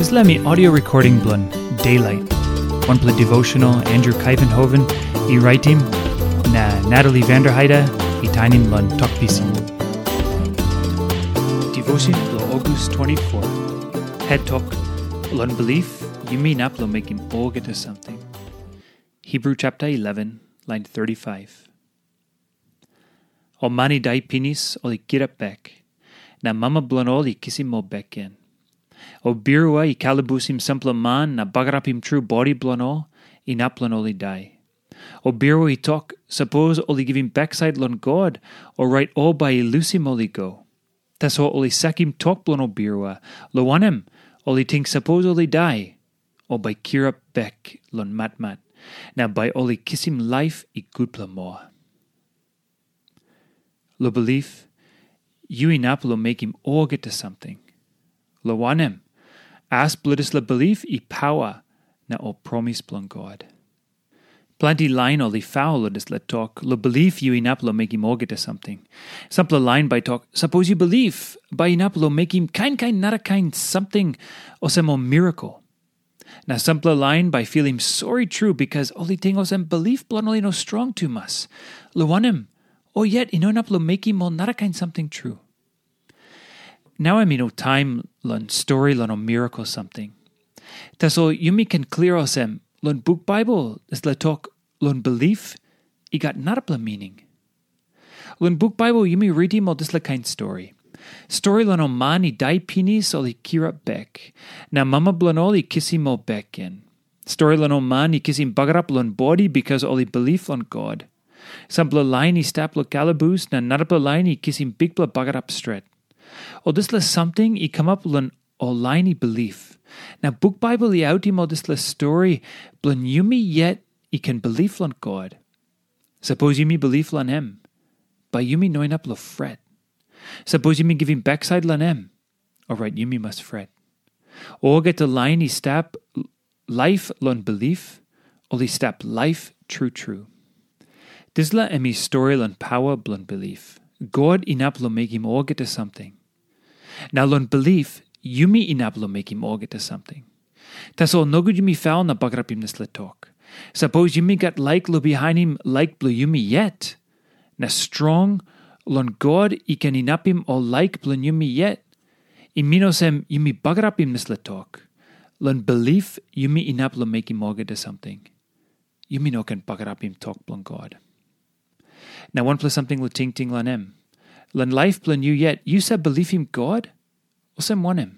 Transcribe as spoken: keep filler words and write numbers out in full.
Dispela mi audio recording bilong Daylight, wanpela devotional Andrew Kaivenhoven i raitim, na Natalie Vanderheide i tainim long Tok Pisin. Devotion bilong August twenty-four. Het tok, long bilip yumi inap long mekim olgeta samting. Hebrew chapter eleven, line thirty-five. Ol man i dai pinis ol i kirap bek, na mama bilong ol i kisim ol bek gen. Ol birua i kalabusim sampela man na bagarapim tru bodi bilong ol, inap long ol i dai. Ol birua i tok, sapos ol i givim baksait long God, orait ol bai i lusim ol i go. Tasol ol i sakim tok bilong ol birua, long wanem, ol i ting sapos ol i dai, ol bai kirap bek long matmat, na bai ol i kisim laip i gutpela moa. Long bilip, yu inap long mekim olgeta samting. Long wanem, as bilong dispela bilip i paua na ol promis bilong God. Planti lain ol i faul long dispela tok, long bilip yu inap long mekim olgeta samting. Sampela lain bai tok, sapos yu bilip, bai inap long mekim kain kain narakain samting olsem ol mirakel. Na sampela lain bai filim sori tru bikas ol i ting olsem bilip bilong ol i no strong tumas. Long wanem, ol yet i no inap long mekim ol narakain samting tru. Nau em i no taim long stori long ol mirakel samting. Tasol yumi ken klia olsem, long buk Baibel dispela tok long bilip i gat narapela mining. Long buk Baibel yumi ritim ol dispela kain stori. Stori long ol man i dai pinis ol i kirap bek, na mama bilong ol i kisim ol bek gen. Stori long ol man i kisim bagarap long bodi bikas ol i bilip long God. Sampela lain i stap long kalabus na narapela lain i kisim bikpela bagarap stret. Ol dispela samting i kamap long ol lain i bilip. Na buk Baibel i autim ol dispela stori bilong yumi yet i ken bilip long God. Sapos yumi bilip long em, bai yumi no inap long fret. Sapos yumi givim baksait long em, orait yumi mas fret. Olgeta lain i stap laip long bilip, ol i stap laip tru tru. Dispela em i stori long paua bilong bilip. God inap long mekim olgeta samting. Na long bilip, yumi inap long mekim olgeta samting. Tasol nogut yumi faul na bagarapim dispela tok. Sapos yumi gat laik long bihainim laik bilong yumi yet, na strong long God i ken inapim ol laik bilong yumi yet, i min olsem yumi bagarapim dispela tok. Long bilip yumi inap long mekim olgeta samting. Yumi no ken bagarapim tok bilong God. Na wanpela samting long tingting long em. Long laip bilong yu yet, yu save bilipim God? Olsem wanem?